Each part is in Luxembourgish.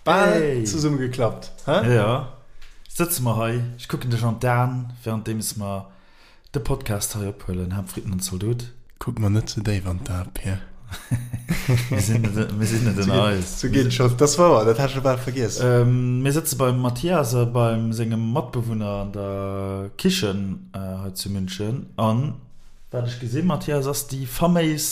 Bal zesumme geklappt, hä? Jo, sëtze mer hei, ech kucken dech an d'Aen, währenddeems mer de Podcast hei ophuelen, Ham, Fritten an Zaldot. Kuck mer net ze déif an d'Ae, Pir. Mir sinn net, mir sinn net ënner eis. Sou geet et scho, dat ass wouer, dat hat ech scho bal vergiess. Mir sëtze beim Mathias a beim sengem Matbewunner an der Kichen hei zu München an wat ech gesinn, Mathias, ass déi faméis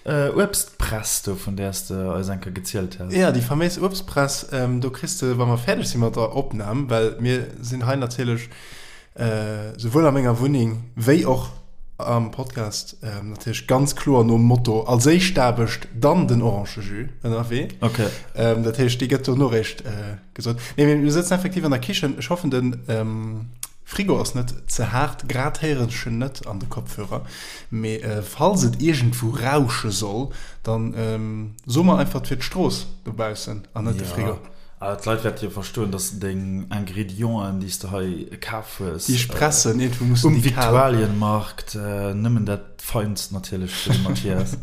Uebstpress do, vun där s de eis eng Kéier gezielt has. Jo, déi faméis Uebstpress. Do kriss de, wa mer fäerdeg si mat der Opnam, well mir sinn hei natierlech souwuel a menger Wunneng wéi och am Podcast natierlech ganz kloer nom Motto als éischt d'Aarbecht, dann den Orangejus ënnerwee. Okay. Dat heescht, déi gëtt dono réischt gesot. Nee, mee mir sëtzen effektiv an der Kichen. Ech hoffen, de Frigo ass net ze haart, grad héieren ech en net an de Kopfhörer, mee falls et iergendwou rausche soll, dann so mer einfach et wier d'Strooss dobaussen an net de Frigo. Jo, awer d'Leit wäerte jo verstoen, dass deng Ingredienten, déi s de hei kaf hues, Déi ech pressen, iergendwou mussen um déi kal. Viktualienmarkt, nëmmen dat Feinst natierlech fir de Mathias,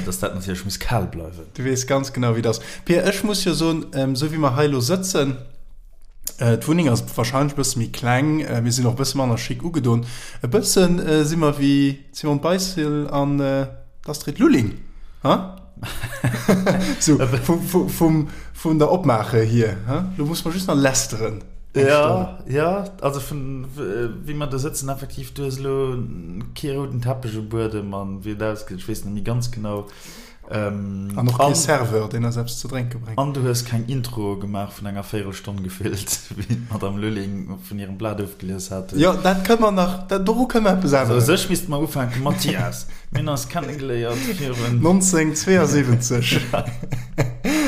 dass dat natierlech muss kal bleiwen. Du weess ganz genau wéi et ass. Pir, ech muss jo soen, esou wéi mer hei elo sëtzen, D'Wunneng ass wahrscheinlech e bësse méi kleng, mir sinn och e bësse manner chic ugedon. E bësse si mer wéi d'Simone Beissel an d'Astrid Lulling, ha? Sou vum, vun der Opmaache hier, ha? Lo musse mer just nach lästeren eng Stonn. Jo, jo, also vun wéi mer do sëtzen, effektiv, du hues elo kee rouden Teppech um Buedem an wéi et ausgesäit, ech weess net méi ganz genau. An och kee Serveur, deen eis eppes ze drénke bréngt. An du hues keng Intro gemaach vun enger Véierelstonn gefillt, wéi d'Madame Lulling vun hirem Blat ofgelies hat. Jo, dat kënne mer nach, doru kënne mer eppes änneren. Also u sech misste mer ufänken, Mathias, mir hunn eis kennegeléiert virun. 1972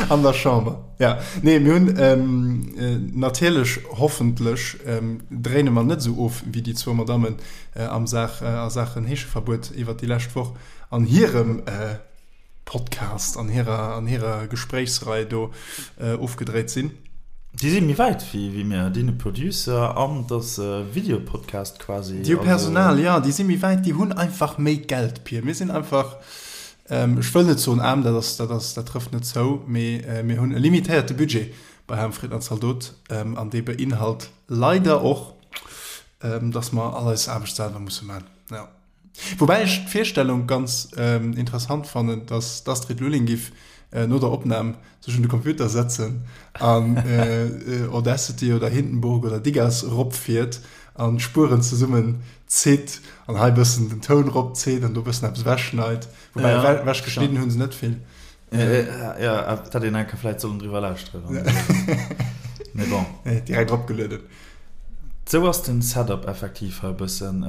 an der Chamber. Ja, nee, mir hunn natierlech, hoffentlech dréine mer net esou of wéi déi zwou Madammen am Saach, a Saachen Heescheverbuet iwwert déi lescht Woch. an hirem Podcast, an hirer, an hirer Gespréichsrei do ofgedréit sinn. Déi si méi wäit wéi mir, déi hunn e Producer an et ass e Videopodcast quasi. Déi hu Personal, jo, déi si méi wäit, déi hunn einfach méi Geld, Pir. Mir sinn einfach, ech wëll net soen aarm, dat ass, dat ass, dat trëfft net zou, mee mir hunn e limitéierte Budget bei Ham, Fritten an Zaldot an dee beinhalt leider och, dass mer all eis Aarbecht selwer musse man, jo. Woubäi ech d'Virstellung ganz interessant fannen, dass d'Astrid Lulling giff no der Opnam sech un de Computer setzen an Audacity oder Hindenburg oder Digas eropfiert an d'Spueren zesummen zitt an hei bëssen den Toun eropzitt an do bëssen eppes ewechschneit. Woubäi ewechgeschnidden hu se net vill. Jo, et hätt een eng Kéier vläit sollen driwwer lauschteren. Mee bon. Direkt eropgelueden. Sou ass den Setup effektiv hei e bëssen.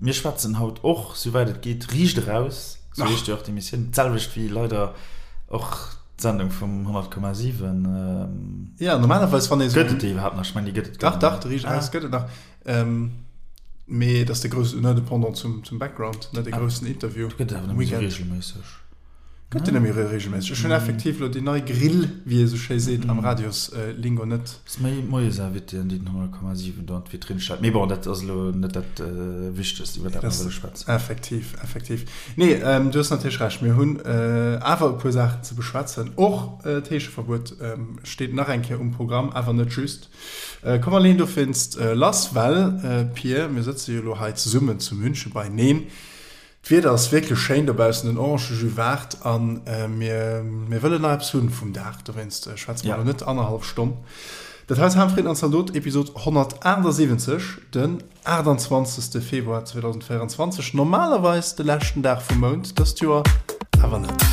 Mir schwätzen haut och, souwäit et geet, riicht eraus. Sou heescht jo och d'Emissioun. D'selwecht wéi leider och d'Sendung vum 100,7. Jo, normalerweis wann ee sou. Gëtt et déi iwwerhaapt nach? Ech mengen, déi gëtt et guer net méi. Dach, dach, de Riicht eraus gëtt et nach. Mee et ass de groussen, ne, de Pendant zum Background, ne, de groussen Interview. Gëtt et awer net méi sou reegelméisseg. Gëtt en net méi reegelméisseg. Ech hunn effektiv elo déi nei Grill, wéi ee sou schéi seet am Radioslingo, net. Ass méi d'Moiesinvitéen, déi den 100,7 do an d'Vitrinn stellt. Mee bon, dat ass elo net dat Wichtegst, iwwer dat mer wëlle schwätzen. Effektiv, effektiv. Nee, du hues natierlech Recht. Mir hunn awer e puer Saachen ze beschwätzen. Och d'Heescheverbuet steet nach eng Kéier um Programm, awer net just. Komm mer leeën dowéinst lass, well, Pir, mir sëtze jo elo hei zesummen zu München beineen. D'Wieder ass wierklech schéin dobaussen, den Orangejus waart an mir mir wëllen nach eppes hunn vum Dag, dowéinst schwätze mer elo net annerhallef Stonn. Dat hei ass Ham, Fritten an Zaldot, Episod 178, den 28. Februar 2024, normalerweis de leschten Dag vum Mount, dëst Joer awer net.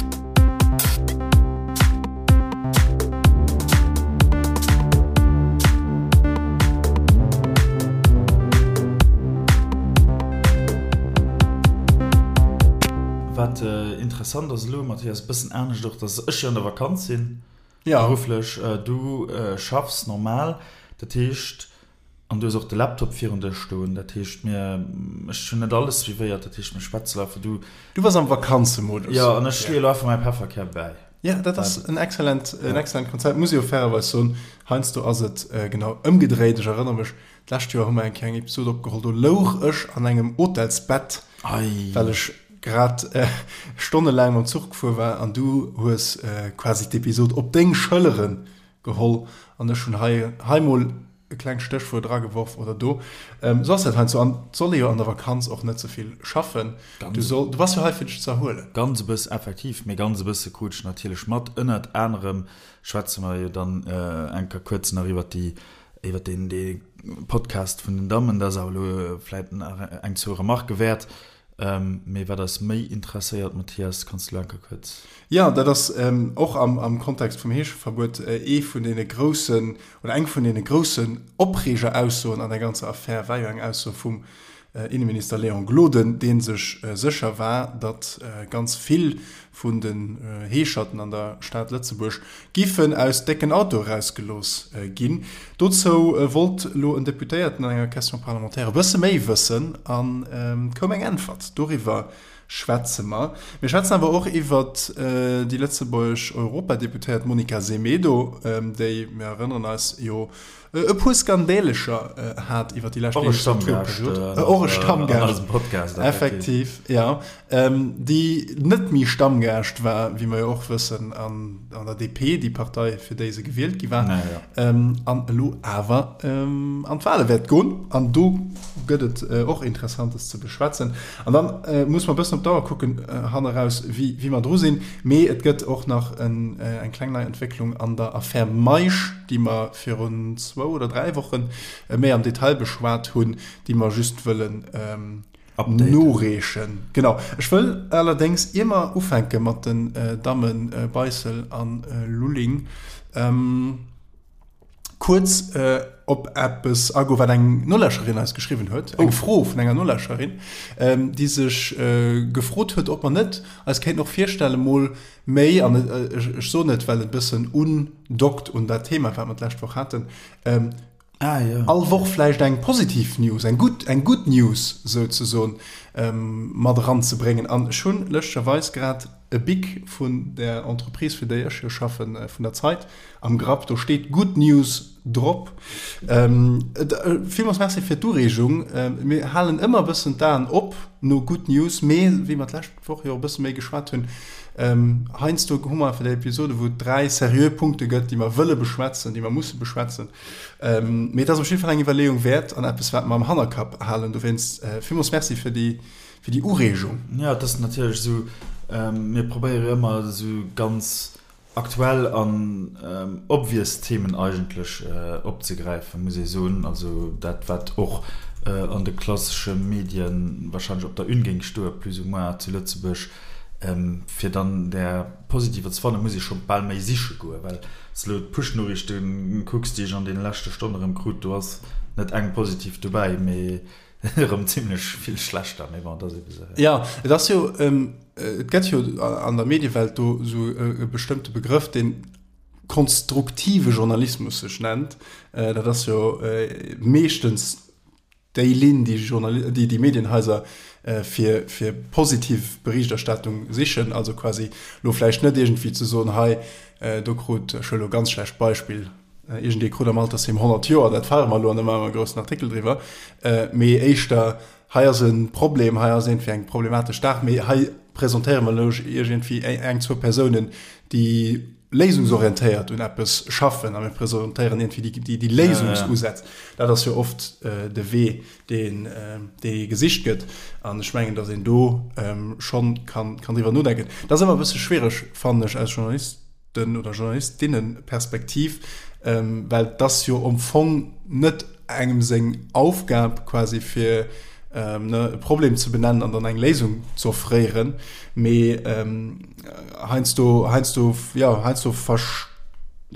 Wat interessant ass elo, Mathias, e bëssen anescht och, dass ech jo an der Vakanz sinn, berufflech, du schaffs normal, dat heescht, an du hues och de Laptop virun dir stoen, dat heescht mir, ech hunn net alles suivéiert, dat heescht mir schwätzen einfach, du. Du bass am Vakanzemodus. Jo, an ech leeë elo einfach mäi Pefferkär bäi. Jo, dat ass en excellent, en excellent Konzept, muss ech jo fairerweis soen. Heiansdo ass et genau ëmgedréit. Ech erënnere mech, D'lescht Joer hu mer eng Kéier eng Episod opgeholl, do louch ech an engem Hotelsbett, well ech grad stonnelaang mam Zuch gefuer war an du hues quasi d'Episod op deng Schëllere. Geholl an ech hunn hei hei mol e klengt Stéchwuert erageworf oder do. Sou ass dat heiansdo an et soll ee jo an der Vakanz och net ze vill schaffen. Du soll, du bass jo hei fir dech ze erhuelen. Ganz e bëss, effektiv, mee ganz e bësse krut ech natierlech mat. Ënnert anerem schwätze mer jo dann eng Kéier kuerz nach iwwert déi, iwwert deen, dee Podcast vun den Dammen. Dat ass awer elo vläit nach eng zwou Remarquë wäert. Mee wat eis méi interesséiert, Mathias, kanns du elo eng Kéier kuerz. Jo, dat ass och am Kontext vum Heescheverbuet ee vun deene groussen, oder eng vun deene groussen Opreegeraussoen an der ganzer Affär war jo eng Ausso vum Inneminister Léon Gloden, dee sech sécher war, datt ganz vill vun den Heescherten an der Stad Lëtzebuerg giffen aus décken Autoe rausgelooss ginn. Dozou wollt elo en Deputéierten an enger Question parlementaire e bësse méi wëssen a koum eng Äntwert. Doriwwer schwätze mer. Mir schwätzen awer och iwwert déi lëtzebuergesch Europadeputéiert Monica Semedo, déi, mir erënneren eis, jo e puer Skandälecher hat iwwer déi lescht Legislaturperiod. Och e Stammgaascht, effektiv, jo. Déi net méi Stammgaascht war, wéi mer jo och wëssen, an der DP, déi Partei, fir déi se gewielt gi war, an elo awer an d'Wale wäert goen. An do gëtt et och Interessantes ze beschwätzen. An dann muss mer e bëssen op d'Auer kucken hanneraus, wéi mer dru sinn. Mee et gëtt och nach eng kleng nei Entwécklung an der Affär Meisch, déi mer virun zwou oder 3 Wochen méi am Detail beschwat hunn, déi mer just wëllen noreechen. Genau. Ech wëll allerdéngs, ier mer ufänke mat den Damme Beissel a Lulling, kuerz op eppes agoen, wat eng Nolauschterin eis geschriwwen huet, eng Fro vun enger Nolauschterin, déi sech gefrot huet, ob mer net eis kéinten och virstellen, mol Méi, an ech soen et, well et e bëssen undockt un dat Thema, wat mer d'lescht Woch haten, all Woch vläicht eng positiv News, eng gutt, eng good News souzesoen, mat eranzebréngen. An ech hunn lëschtgerweis grad e Bic vun der Entreprise, fir déi ech jo schaffen, vun der Zeit, am Grapp. Do steet Good News drop. Villmools Merci fir d'Ureegung. Mir halen ëmmer e bëssen d'Aen op no Good News, mee wéi mer d'lescht Woch jo e bësse méi geschwat hunn. Heiansdo hu mer einfach déi Episode, wou et 3 seriö Punkte gëtt, déi mer wëlle beschwätzen, déi mer musse beschwätzen. Mee et ass op jidde Fall eng Iwwerleeung wäert an eppes, wat mer am Hannerkapp halen. Dowéinst villmools Merci fir déi, fir déi Ureegung. Jo, et ass natierlech esou, mir probéiere jo ëmmer esou ganz Aktuell an obvious Themen eigentlech opzegräifen, muss ee soen. Also dat, wat och an de klassesche Medien wahrscheinlech op der Une géing stoe plus ou moins zu Lëtzebuerg. Fir dann där positiver ze fannen, muss ee scho bal méi siche goen, well s de elo d'Push-Noriichte kucks, déi ech an deene leschte Stonne erëm krut, do ass net eng positiv dobäi, mee Erëm zimlech vill schlechter, mee bon, et ass ebe sou. Jo, et ass jo, et gëtt jo an der Mediewelt do esou e bestëmmte Begrëff, deen konstruktive Journalismus sech nennt. Dat ass jo meeschtens déi Linn, déi Journal-, déi déi Medienhaiser fir, fir positiv Berichterstattung sichen. Also quasi elo vläicht net iergendwéi ze soen, hei do krut, ech huele elo e ganz schlecht Beispill, Iergendee krut am Altersheem 100 Joer, dat feiere mer elo an da maache mer e groussen Artikel driwwer. Mee éischter, hei ass e Problem, hei ass iergendwéi eng problematesch Saach, mee hei presentéiere mer elo iergendwéi eng, zwou Persounen, déi léisungsorientéiert un eppes schaffen a mir presentéieren iergendwéi déi, déi Léisungsusätz. Dat ass jo oft de Wee, deen, dee gesicht gëtt. An ech mengen, datt een do schonn kann, kann driwwer nodenken. Dat ass ëmmer e bësse schwiereg, fannen ech, als Journalist. den oder Journalistinnenperspektiv, well et ass jo am Fong net engem seng Aufgab quasi fir ne e Problem ze benennen an dann eng Léisung ze offréieren, mee heiansdo heiansdo jo heiansdo versch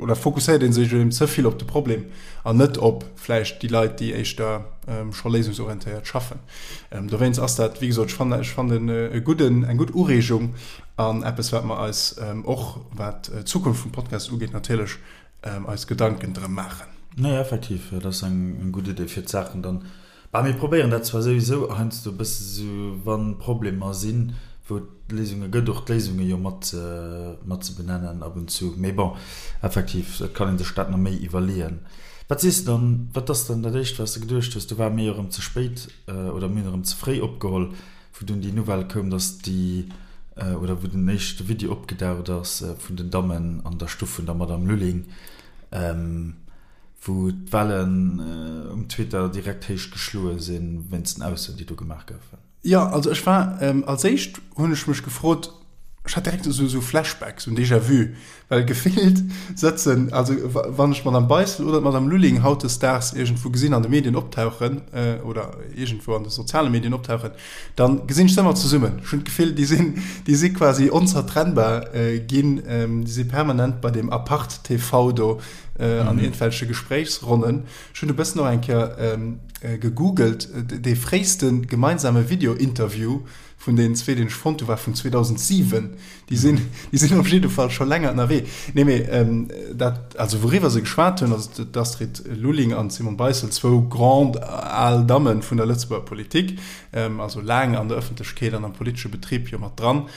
oder fokusséiert ee sech eben ze vill op de Problem an net op vläicht déi Leit, déi éischter scho léisungsorientéiert schaffen. Dowéinst ass dat, wéi gesot, ech fannen ech fannen e gudden eng gutt Ureegung An eppes, wat mer eis och, wat d'Zukunft vum Podcast ugeet, natierlech eis Gedanken drëm maachen. Nee, effektiv, dat ass eng gutt Idee, fir d'Saachen dann, bah, mir probéieren dat zwar souwisou heiansdo e bësse sou, wa Problemer sinn, wou et Léisunge gëtt, och d'Léisunge jo mat mat ze benennen ab und zu. Mee bon, effektiv, et kann ee sech dat nach méi iwwerleeën. Wat sees de dann, wat ass dann dat Éischt, wat s de geduecht hues? Do ware mir jo erëm ze spéit oder mir hunn erëm ze fréi opgeholl. Wou dunn déi Nouvelle koum, dass déi, oder wou den éischte Video opgedaucht ass vun den Dammen an der Stuff vun der Madame Lulling. Wou d'Wellen um Twitter direkt héich geschloe sinn, wéinst den Aussoen, déi do gemaach goufen. Jo, also ech war, als éischt hunn ech mech gefrot, ech hat direkt esou Flashbacks, esou en Déjà-vu, well gefillt sëtzen, also wann ech d'Madame Beissel oder d'Madame Lulling hautdesdaags iergendwou gesinn an de Medien optauchen oder iergendwou an de soziale Medien optauchen, da gesinn ech se ëmmer zesummen. Ech hunn d'Gefill, déi sinn, déi si quasi onzertrennbar ginn, déi si permanent bei deem Apart TV do an iergendwelche Gespréichsronnen. Ech hunn e bëssen och eng Kéier gegoogelt, dee fréiste gemeinsame Video-Interview vun deenen zwee, deen ech fonnt hu, war vun 2007. Déi sinn, déi sinn op jidde Fall scho länger ënnerwee. Nee, mee dat, also wouriwwer se geschwat hunn, also d'Astrid Lulling an d'Simone Beissel, zwou grand al Damme vun der Lëtzebuerger Politik, also laang an der Ëffentlechkeet an am politesche Betrib jo mat dran,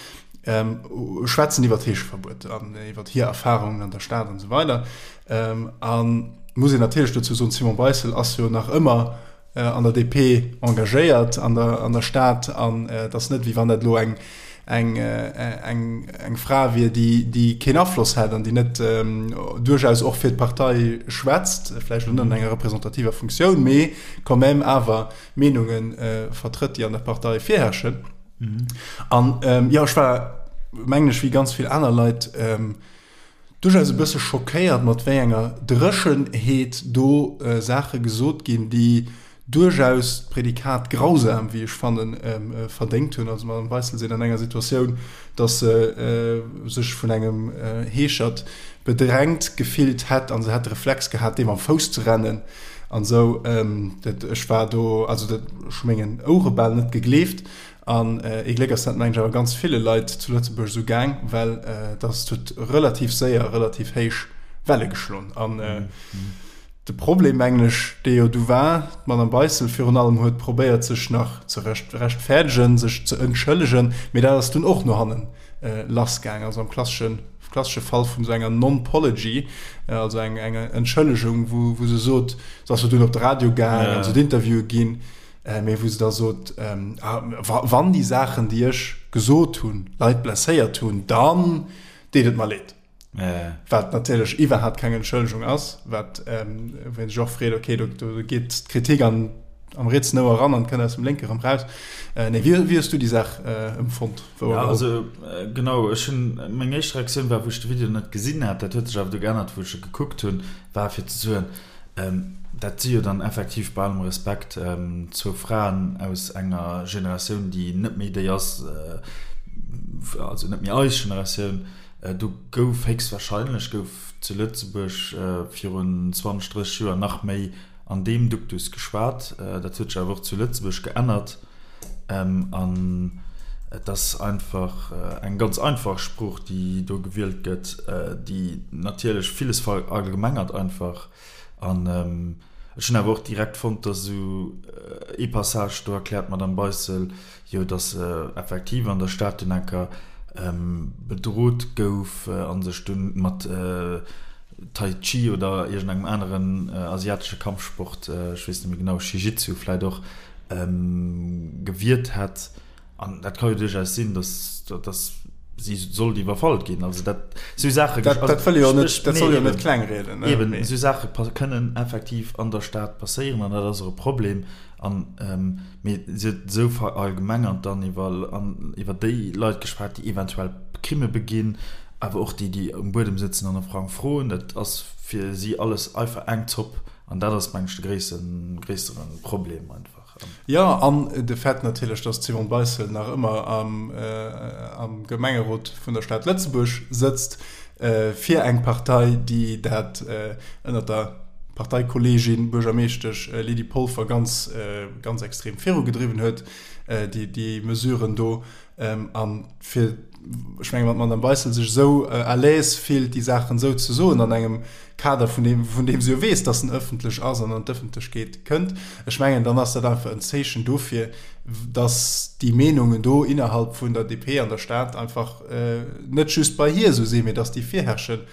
schwätzen iwwer d'Heescheverbuet an iwwer hir Erfarungen an der Stad an esou weider. An muss een natierlech dozou soen, d'Simone Beissel ass jo nach ëmmer an der DP engagéiert an der, an der Stad an et ass net, wéi wann dat elo eng, eng, eng, eng Fra wier, déi, déi keen Afloss hätt an déi net duerchaus och fir d'Partei schwätzt, vläicht elo net an enger representativer Funktioun, mee quand même awer Meenunge vertrëtt, déi an der Partei virherrschen. An jo, ech war, mengen ech, wéi ganz vill aner Leit, duerchaus e bësse schockéiert, mat wéi enger Dréchenheet do Saache gesot ginn, déi duerchaus d'Prädikat grausam, wéi ech fannen, verdéngt hunn. Also d'Madame Beissel seet an enger Situatioun, datt se sech vun engem Heeschert bedrängt gefillt hätt a se hätt de Reflex gehat, deem am Fouss ze rennen an esou. Dat, ech war do, also dat, ech hu mengen Ouere bal net gegleeft. An ee Gléck ass dat, mengen ech, awer ganz ville Leit zu Lëtzebuerg esou gaang, well dass huet relativ séier relativ héich Welle geschloen. An de Problem, mengen ech, dee jo du war, d'Madame Beissel virun allem huet probéiert, sech nach ze rechtfäerdegen, sech ze entschëllegen, mee dat ass dunn och no hanne lassgaang. Also am klassesche klassesche Fall vun esou enger Non-Pology, also eng Entschëllegung, wou se sot, se ass jo dunn op de Radio gaang an se huet Interviewe ginn, Mee wou se da sot, Wann déi Saachen, déi ech gesot hunn, Leit blesséiert hunn, dann deet et mer leed. Wat natierlech iwwerhaapt keng Entschëllegung ass, wat, wou ee sech och freet, okay, do geet d'Kritik an, am rietsen Ouer eran an kënnt aus dem lénke erëm raus. Nee, wéi hues du déi Saach empfonnt? Jo, also genau, ech hunn, meng éischt Reaktioun war, wou ech de Video net gesinn hat, dat huet sech awer du geännert, wou ech e gekuckt hunn, war fir ze soen, Dat si jo dann effektiv, bei allem Respekt, zwou Fraen aus enger Generatioun, déi net méi déi ass, also net méi eis Generatioun. Do gouf héchstwahrscheinlech, gouf zu Lëtzebuerg virun 20, 30 Joer nach méi an deem Duktus geschwat. Dat huet sech awer och zu Lëtzebuerg geännert. An et ass einfach eng ganz einfach Sprooch, déi do gewielt gëtt, déi natierlech villes verallgemengert einfach. An ech hunn awer och direkt fonnt, datt esou ee Passage, do erkläert d'Madame Beissel jo, datt se effektiv an der Stad dunn enker bedrot gouf a sech dunn mat Tai Chi oder iergendengem aneren asiatesche Kampfsport, ech weess net méi genau, Shijitsu vläicht och, gewiert hätt, an dat ka jo duerchaus sinn, datt datt si sollt iwwerfall ginn, also dat sou Saache, dat dat wëll jo net, dat soll jo net kleng rieden, ne? Eben, esou Saache kënnen effektiv an der Stad passéieren an dat ass och e Problem an mee si huet esou verallgemengert dann iwwer an iwwer déi Leit geschwat, déi eventuell Crime beginn, awer och déi, déi um Buedem sëtzen an e Frang froen, dat ass fir si alles einfach eng Zopp. An dat ass, meng ech, de gréissten, gréissere Problem einfach. Jo, an de Fait natierlech, datt d'Simone Beissel nach ëmmer am, am Gemengerot vun der Stad Lëtzebuerg sëtzt, fir eng Partei, déi dat ënnert der Parteikolleegin, Buergermeeschtesch Lydie Polfer ganz, ganz extrem virugedriwwen huet, déi, déi Mesuren do. An fir, ech mengen, wann d'Madame Beissel sech esou à l'aise fillt, déi Saachen esou ze soen an engem Kader, vun deem, vun deem se jo weess, dass en ëffentlech ass an an d'Ëffentlechkeet kënnt, ech mengen, dann ass dat einfach en Zeechen dofir, dass déi Meenungen do innerhalb vun der DP an der Stad einfach net just bei hir esou sinn, mee dass déi virherrschen.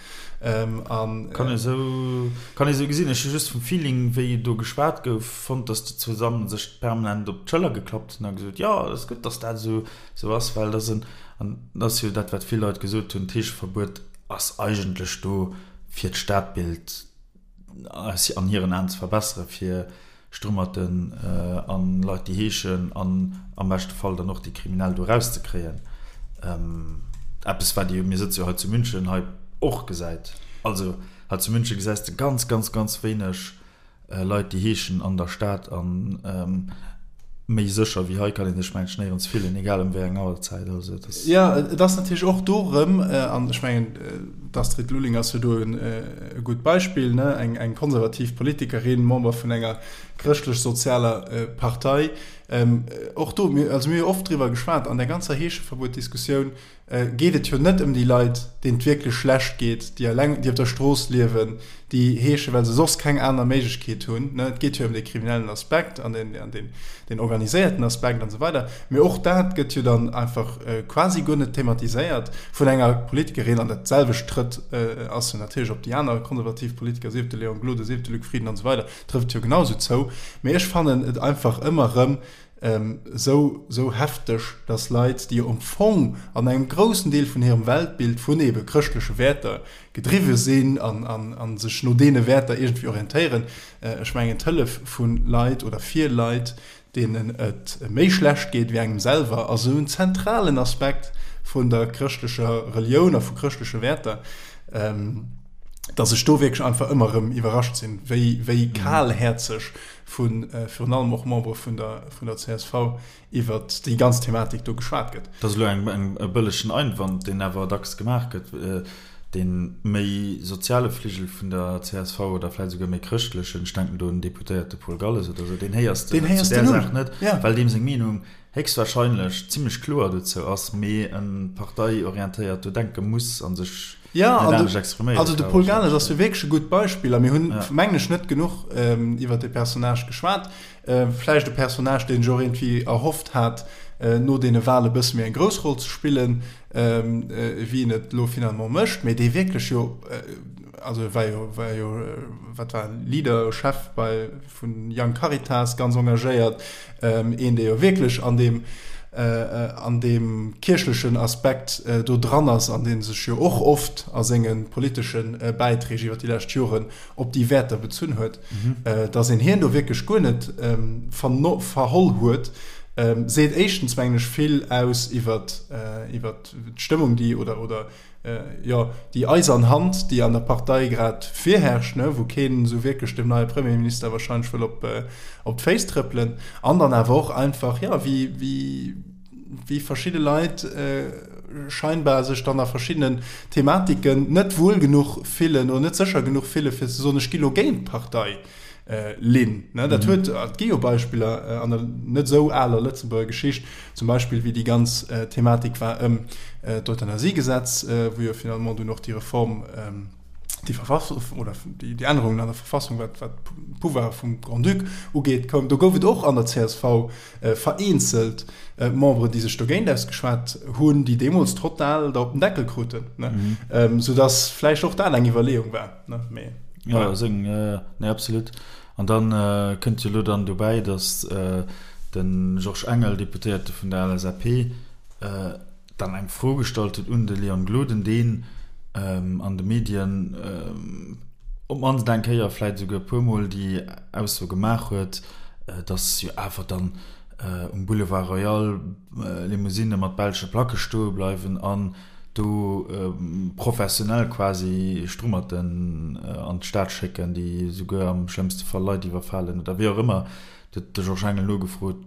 An. Kann ee sou, kann ee sou gesinn. Ech hu just vum Feeling, wéi do geschwat gouf, fonnt, dass déi zwou Dammen sech permanent op d'Schëller geklappt hunn a gesot, jo, et ass gutt, dass dat esou, esou ass, well dat ass en, an dat ass jo dat, wat vill Leit gesot hunn, d'Heescheverbuet ass eigentlech do, fir d'Stadbild. an hiren Aen ze verbessere fir Strummerten an Leit déi heeschen an am beschte Fall dann och déi Kriminell do erauszekréien. Eppes wat ee jo, mir sëtze jo hei zu München, hei och gesäit. Also hei zu München gesäis de ganz, ganz, ganz wéineg Leit déi heeschen an der Stad an méi sécher wéi hei kann een sech mengen ech néierens fillen, egal ëm wéi eng Auerzäit. Also et ass. Jo, et ass natierlech och do erëm, an ech mengen d'Astrid Lulling ass jo do e gutt Beispill, ne, eng eng konservativ Politikerin, Member vun enger chrëschtlech-sozialer Partei. Och do, mir, also mir hu jo oft driwwer geschwat an där ganzer Heescheverbuet-Diskussioun, geet et jo net ëm déi Leit, deenen et wierklech schlecht geet, déi eleng, déi op der Strooss liewen, déi heeschen, well se soss keng aner Méiglechkeet hunn. Et geet jo ëm dee kriminellen Aspekt an deen, an deen, deen organiséierten Aspekt an esou weider. Mee och dat gëtt jo dann einfach quasi guer net thematiséiert vun enger Politikerin. An dat selwecht trëtt, ass jo natierlech op déi aner konservativ Politiker, sief et de Léon Gloden, sief et de Luc Frieden an esou weider, trëfft et jo genau esou zou. Mee ech fannen et einfach ëmmer erëm Esou, esou hefteg, dass Leit, déi jo am Fong an engem groussen Deel vun hirem Weltbild vun ebe chrëschtleche Wäerter gedriwwe sinn an, an, a sech no deene Wäerter iergendwéi orientéieren, ech mengen d'Hëllef vu Leit oder fir Leit, deenen et méi schlecht geet wéi engem selwer, ass esou en zentralen Aspekt vun der chrëschtlecher Relioun a vu chrëschtleche Wäerter, dass ech do wierklech einfach ëmmer erëm iwwerrascht sinn, wéi, wéi kalhäerzeg vu virun allem och Membere vun der, vun der csv iwwert déi ganz Thematik do geschwat gëtt. Dat ass elo eng, eng, e bëllegen Einwand, deen awer dacks gemaach gëtt, dee méi soziale Fligel vun der csv oder vläicht esouguer méi chrëschtlechen, ech denken do un den Deputéierte Paul Galles oder esou, deen héiers de zu där Saach net, well deem seng Meenung héchstwahrscheinlech zimlech kloer dozou ass, mee e parteiorientéiert do denke muss a sech Ja, an de, also de Paul Galles ass jo wierklech e gutt Beispill a mir hunn, mengen ech, net genuch iwwer dee Personnage geschwat. Vläicht e Personnage, deen sech och iergendwéi erhofft hat, no deene Wale e bësse méi eng grouss Roll ze spillen, wéi en et elo finalement mécht, mee dee wierklech jo, also e war jo, war jo, wat war en, Leader, Chef bei, vun Young Caritas ganz engagéiert, een dee jo wierklech an deem an deem kierchlechen Aspekt do dran ass an dee sech jo och oft a senge politesche Bäiträg iwwer déi lescht Joren op déi Wäerter bezunn huet, datt een hien do wierklech guer net verholl huet, seet éischtens mengen ech vill aus iwwer iwwer d'Stëmmung déi oder oder jo, déi eisern Hand, déi an der Partei grad virherrscht, ne, wou keen esou wierklech dem neie Premierminister wahrscheinlech wëll op, op d'Féiss trëppelen, an dann awer och einfach, jo, wéi, wéi, wéi verschidde Leit scheinbar sech dann a verschiddenen Thematiken net wuel genuch fillen oder net sécher genuch fille fir ze soen, ech gi lo géint d'Partei. Linn. Dat huet, et gi jo Beispiller an der net esou aler Lëtzebuerger Geschicht, zum Beispill wéi déi ganz Thematik war ëm d'Euthanasiegesetz, wou jo finalement dunn och déi Reform, déi Verfassung oder déi Ännerungen an der Verfassung, wat d'Pouvoire vum Grand-Duc ugeet, koum. Do gouf et och an der csv vereenzelt Memberen, déi sech dogéint ausgeschwat hunn, déi deemools total der op den Deckel kruten, soudass vläicht och dat eng Iwwerleeung war. Ne, mee. Ja, seng, nee, absolut. An dann kënnt jo elo dann dobäi, datt de Georges Engel, Deputéierte vun der LSAP, dann eng Fro gestallt huet un de Leon Gloden, deen an de Medien op d'mannst eng Kéier, vläit esouguer e puermol déi Ausso gemaach huet, datt jo awer dann um Boulevard Royal Limousinne mat belsche Placke stoe bleiwen an do professionell quasi Strummerten an d'Stad schécken, déi esouguer am schlëmmste Fall Leit iwwerfalen oder wéi och ëmmer. Do huet de Georges Engel nogefrot,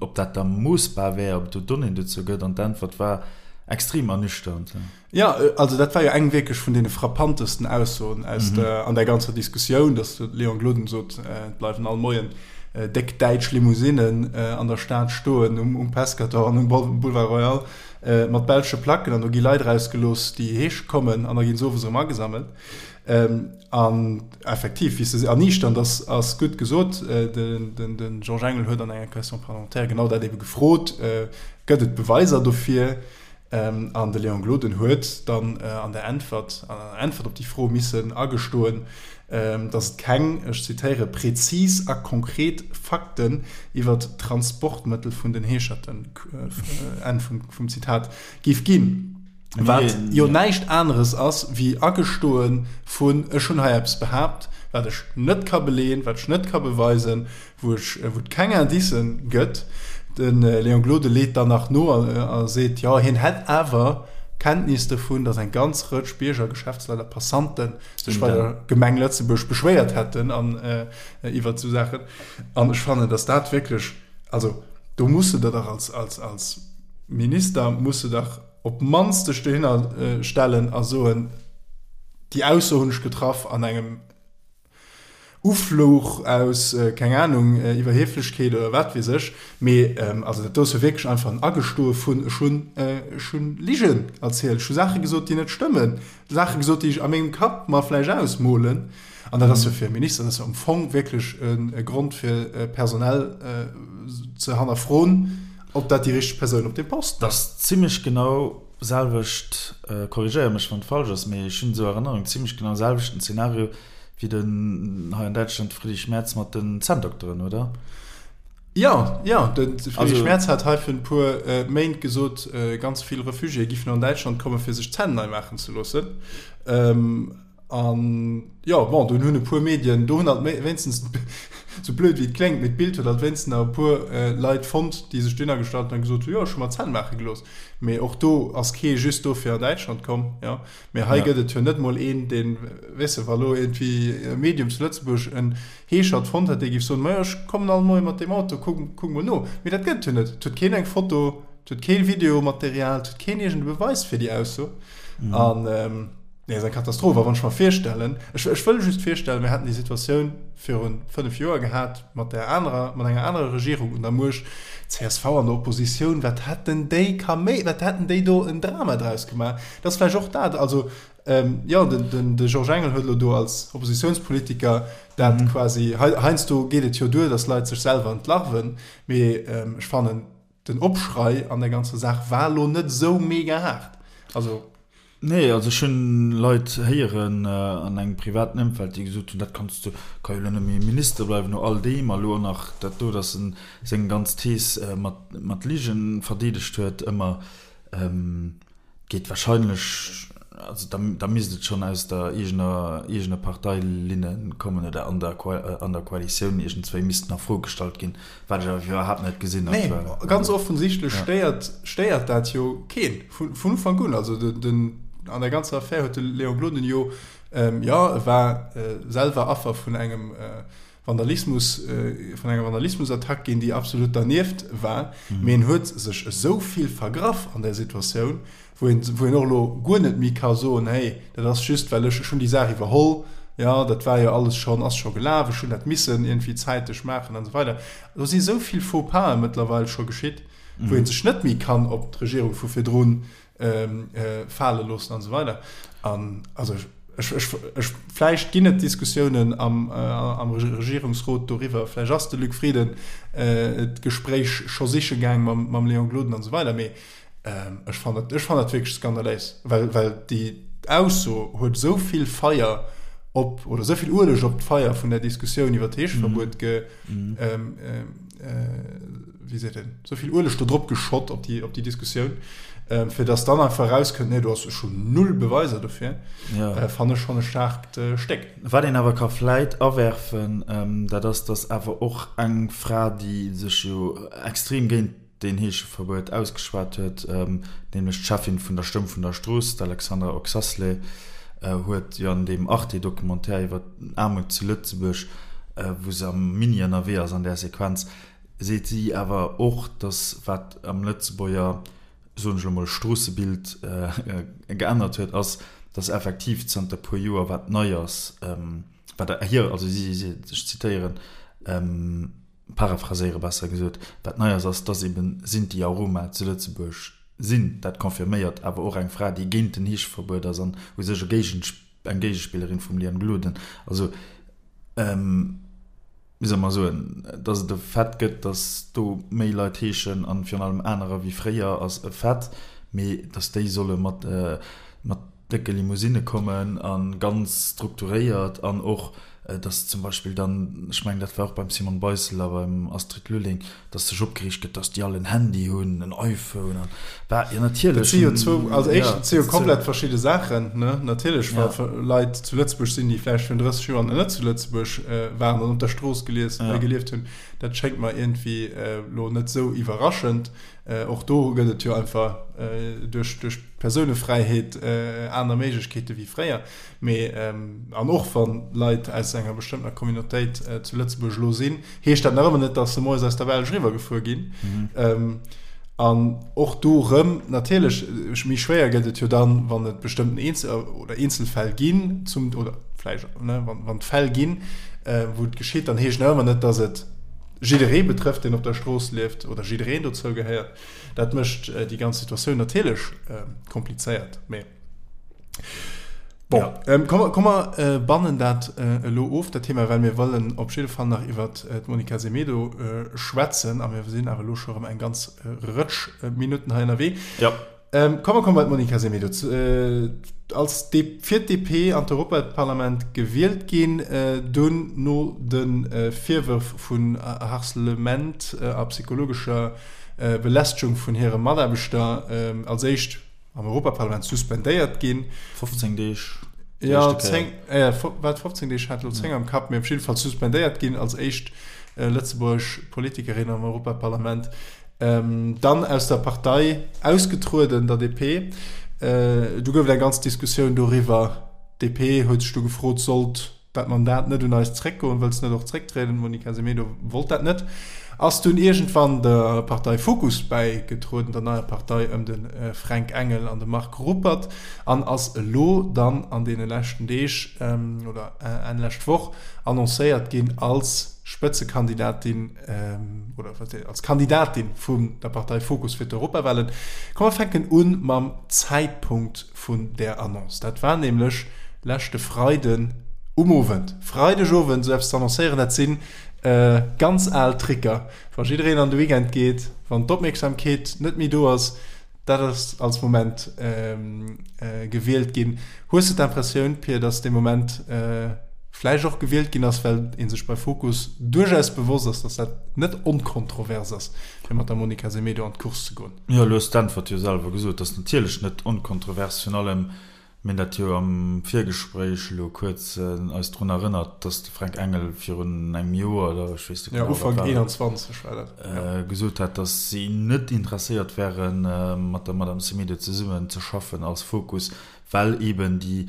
ob dat da moossbar wär, ob et do Donnéeën dozou gëtt, an d'Äntwert war extrem ernüchternd. Jo, also dat war jo eng wierklech vun deene frappantesten Aussoen aus der, an där ganzer Diskussioun, datt de Léon Gloden sot, et bleiwen all Moien déck däitsch Limousinnen an der Stad stoen um Pescator an um Boulevard Royal. Mat belsche Placken an do gi Leit erausgelooss, déi heesche kommen an da ginn se owes erëm agesammelt. An effektiv, wéi s de se erniichternd ass, ass gutt gesot. De Georges Engel huet an enger Question parlementaire genau dat ebe gefrot, Gëtt et Beweiser dofir? An de Léon Gloden huet dann an der Äntwert, an der Äntwert op déi Fro missen agestoen, dass et keng, ech zitéiere, prezis a konkret Fakten iwwer d'Transportmëttel vun den Heescherten, Enn vum Zitat, géif ginn. Wat jo näischt aneres ass wéi agestoe vun, ech hunn hei eppes behaapt, wat ech net ka beleeën, wat ech net ka beweisen, wou ech, wou et keng Indicen gëtt. De Léon Gloden leet dann nach no a seet, jo, hien hätt awer Kenntnis dovun, datt eng ganz Rëtsch Bierger, Geschäftsleit a Passanten sech bei der Gemeng Lëtzebuerg beschwéiert hätten an iwwert esou Saachen. An ech fannen, datt dat wierklech, also do muss de der dach als, als, als Minister muss de dach op d'mannst dech dohinner stellen a soen, déi Ausso hunn ech getraff an engem Ufluch aus, keng Anung, Iwwerhieflechkeet oder wat weess ech. Mee also dat do ass jo wierklech einfach en Agestoe vun, ech hunn, ech hunn Ligen erzielt, ech hu Saache gesot, déi net stëmmen, Saache gesot, déi ech a mengem Kapp mer vläicht ausmolen. An dat ass jo fir e Minister, dat ass jo am Fong wierklech e Grond fir personell ze hannerfroen, ob dat déi richteg Persoun op deem Posten ass. Dat ass zimlech genau selwecht, korrigéier mech wann et falsch ass, mee ech hunn esou Erënnerung, zimlech genau selwechten Zeenario wéi den hei an Däitschland de Friedrich Merz mat den Zänndokteren, oder? Jo, jo, de Friedrich Merz hat hei virun e puer Méint gesot, ganz vill Refugiéë giffen an Däitschland kommen, fir sech d'Zänn nei maachen ze loossen. An jo, bon, dunn hunn e puer Medien, do hunn alt wéinstens, sou blöd wéi et kléngt, mee d'Bild huet alt wéinstens nach e puer Leit fonnt, déi sech dunner gestallt hunn a gesot hunn, jo, ech hu mer d'Zänn maache gelooss. Mee och do ass kee just dofir an Däitschland komm, jo. Mee hei gëtt et jo net mol een, deen, weess de, wa lo iergendwéi e Medium zu Lëtzebuerg en Heeschert fonnt hätt, dee géif soen, majo, ech kommen all Moie mat deem Auto, kuck, kuck mol no. Mee dat gëtt et jo net. Et huet keen eng Foto, et huet kee Videomaterial, et huet keen iergend e Beweis fir déi Ausso. An. Nee, ass eng Katastroph. A wann ech mer virstellen, ech, ech wëll just virstellen, mir haten déi Situatioun viru 5 Joer gehat mat där anerer, mat enger anerer Regierung un der Muecht, csv an der Oppositioun, wat hätten déi Kaméi, wat hätten déi do en Drama draus gemaach? Dat ass vläicht och dat, also, jo, den, den, de Georges Engel huet elo do als Oppositiounspolitiker dat quasi, hei, heiansdo geet et jo duer, datt Leit sech selwer entlarven, mee ech fannen, den Opschrei an der ganzer Saach war elo net esou mega haart. Also. Nee, also ech hunn Leit héieren an engem privaten Ëmfeld, déi gesot hunn, dat kanns du, ka jo elo net méi Minister bleiwen no all deem a elo och nach dat do, datt en seng ganz Thees mat mat Ligen verdeedegt huet ëmmer. Geet wahrscheinlech, also da da misst et schonn aus der eegener eegener Parteilinne kommen oder an der an der Koalitioun iergendswéi missten a Fro gestallt ginn. Wat ech awer iwwerhaapt net gesinn aktuell. Nee, ganz offensichtlech stéiert, stéiert dat jo keen vun, vun Ufank un. Also den, den, an der ganzer Affär huet de Léon Gloden jo, ähm, jo, e war äh, selwer Affer vun engem äh, Vandalismus, äh, vun enger Vandalismusattack ginn, déi absolut dernieft war. Mhm. Mee en huet sech esou vill vergraff an där Situatioun, wou een, wou een och elo guer net méi ka soen, hey, dat ass just, well ech, ech hunn déi Saach iwwerholl, jo, dat war jo alles schonn, ass scho gelaf, ech hunn dat missen iergendwéi zäiteg maachen an esou weider. Do si esou vill Faux-pasen mëttlerweil scho geschitt, wou ee sech net méi kann op d'Regierung vu virdrun fale loossen an esou weider. An also ech, ech, ech, vläicht ginn et Diskussiounen am, am Regierungsrot doriwwer, vläicht ass de Luc Frieden d'Gespréich scho siche gaang mam, mam Léon Gloden an esou weider, mee Ech fannen dat, ech fannen dat wierklech skandaléis, well, well déi Ausso huet esou vill Feier op, oder esou vill Ueleg op d'Feier vun der Diskussioun iwwer d'Heescheverbuet ge, wéi seet een, esou vill Ueleg do drop geschott op déi, op déi Diskussioun, fir datt dann einfach erauskënnt, nee, do ass, ech hunn null Beweiser dofir, fannen ech schonn e staarkt Stéck. Wat een awer ka vläit awerfen, dat ass, datt awer och eng Fra, déi sech jo extrem géint deen Heescheverbuet ausgeschwat huet, nämlech d'Cheffin vun der Stëmm vun der Strooss, d'Alexandra Oxasley, huet jo an deem Arte-Documentaire iwwer d'Aarmut zu Lëtzebuerg, wou se am Mini ënnerwee ass an där Sequenz, seet si awer och, datt wat am Lëtzebuerger, soen ech elo mol, Stroossebild geännert huet, ass, datt effektiv zanter puer Joer, wat nei ass, wat hir, also si, ech zitéieren, Paraphraséiere besser gesot, wat nei ass, ass, dass eben Sinti a Roma zu Lëtzebuerg sinn. Dat confirméiert awer och eng Fra, déi géint den Heescheverbuet ass an u sech e Géigen, eng Géigespillerin vum Liane Gloden. Also, wéi soll mer soen, dass et e Fait gëtt, dass do méi Leit heeschen an virun allem anerer wéi fréier, ass e Fait, mee dass déi solle mat, mat décke Limousinne kommen a ganz strukturéiert an och. Dass zum Beispill dann, ech mengen, dat war och beim Simone Beissel a beim Astrid Lulling, dass sech opgereegt gëtt, dass déi all en Handy hunn, en iPhone an bah, jo natierlech. Dat si jo zwou, also éischtens, dat si jo komplett verschidde Saachen, ne? Natierlech, wa Leit zu Lëtzebuerg sinn, déi vläicht virun 30 Joer nach net zu Lëtzebuerg waren an op der Strooss gelies, gelieft hunn, dat schéngt mer iergendwéi elo net esou iwwerraschend. Och do gëtt et jo einfach duerch d'Persounefräiheet aner Méiglechkeete wéi fréier. Mee, an och wa Leit aus enger bestëmmtener Communautéit zu Lëtzebuerg elo sinn, heescht dat nach ëmmer net, datt se moies aus der Belsch eriwwergefuer ginn. An och do erëm, natierlech, méi schwéier gëtt et jo dann, wann et bestëmmten Eenzel oder Eenzelfäll ginn, zum, oder vläicht, ne, wann et Fäll ginn, wou et geschitt, dann heescht nach ëmmer net, datt et jidderee betrëfft, deen op der Strooss lieft oder jiddereen dozou gehéiert. Dat mécht déi ganz Situatioun natierlech komplizéiert. Mee bon, ja. komm, komm mer bannen dat elo of, dat Thema, well mir wëllen op jidde Fall nach iwwer d'Monica Semedo schwätzen a mir sinn awer elo scho erëm eng ganz Rëtsch Minutten hei ënnerwee. Ja. Komm mer komme bei d'Monica Semedo. Als fir d'DP an d'Europaparlament gewielt ginn, dunn no de Virwërf vun Harcelement a psychologescher Belästegung vun hire Mataarbechter als éischt am Europaparlament suspendéiert ginn. 15 Deeg. Jo, 10, wat 15 Deeg, hat elo 10 am Kapp, mee op jidde Fall suspendéiert ginn als éischt lëtzebuergesch Politikerin am Europaparlament. Dann aus der Partei ausgetrueden, der DP. Du gouf et eng ganz Diskussioun doriwwer. D'DP huet sech du gefrot, sollt dat Mandat net un eis zréckgoen, wëlls net och zrécktrieden? D'Monica Semedo wollt dat net, ass dunn iergendwann der Partei Fokus bäigetrueden, der neier Partei ëm de Fränk Engel an de Marc Ruppert, an ass elo dann an deene leschten Deeg oder Enn lescht Woch annoncéiert ginn als Spëtzekandidatin oder als Kandidatin vun der Partei Fokus fir d'Europawahlen. Komm mer fänken un mam Zäitpunkt vun där Annonce. Dat war nämlech leschte Freiden um Owend. Freidegowend esou eppes ze annoncéieren, dat si ganz al Tricker. Wa jiddereen an de Weekend geet, wann d'Opmierksamkeet net méi do ass, Dat ass als Moment gewielt ginn. Hues de d'Impressioun, Pir, datt dee Moment vläicht och gewielt ginn ass, well ee sech bei Fokus duerchaus bewosst ass, datt dat net onkontrovers ass, fir mat der Monica Semedo an d'Course ze goen? Jo, elo hues d'Äntwert jo selwer gesot. Dat ass natierlech net onkontrovers. Virun allem Mir hunn dat jo am Virgespréich elo kuerz eis drun erënnert, dass de Fränk Engel virun engem Joer, oder ech weess net genau, wat war, Ufank 21 war dat, jo, gesot hat, dass si net interesséiert wären, mat der Madame Semedo zesummen ze schaffen als Fokus, well eeben déi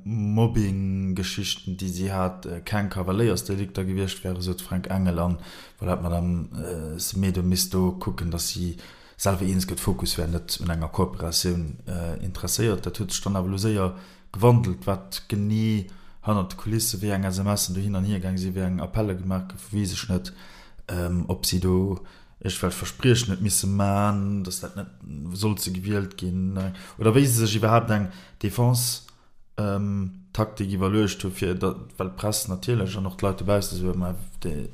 Mobbing-Geschichten, déi si hat, keng Kavaléiersdelikter gewiescht wären, sot de Fränk Engel. An voilà, d'Madame Semedo misst do kucken, dass si selwer eens gëtt. Fokus wär net un enger Kooperatioun interesséiert. Dat huet sech dann awer elo séier gewandelt, wat genee hannert de Kulisse, wéi eng SMSen do hin an hier gaang sinn, wéi eng Appelle gemaach goufen, weess ech net. Ob si do iergendwelch Verspriechen huet misse man, datt dat net sollt se gewielt ginn, oder wéi se sech iwwerhaapt eng Defense Taktik iwwerluecht hu fir dat, well d'Press natierlech an och d'Leit dobausse soe ma déi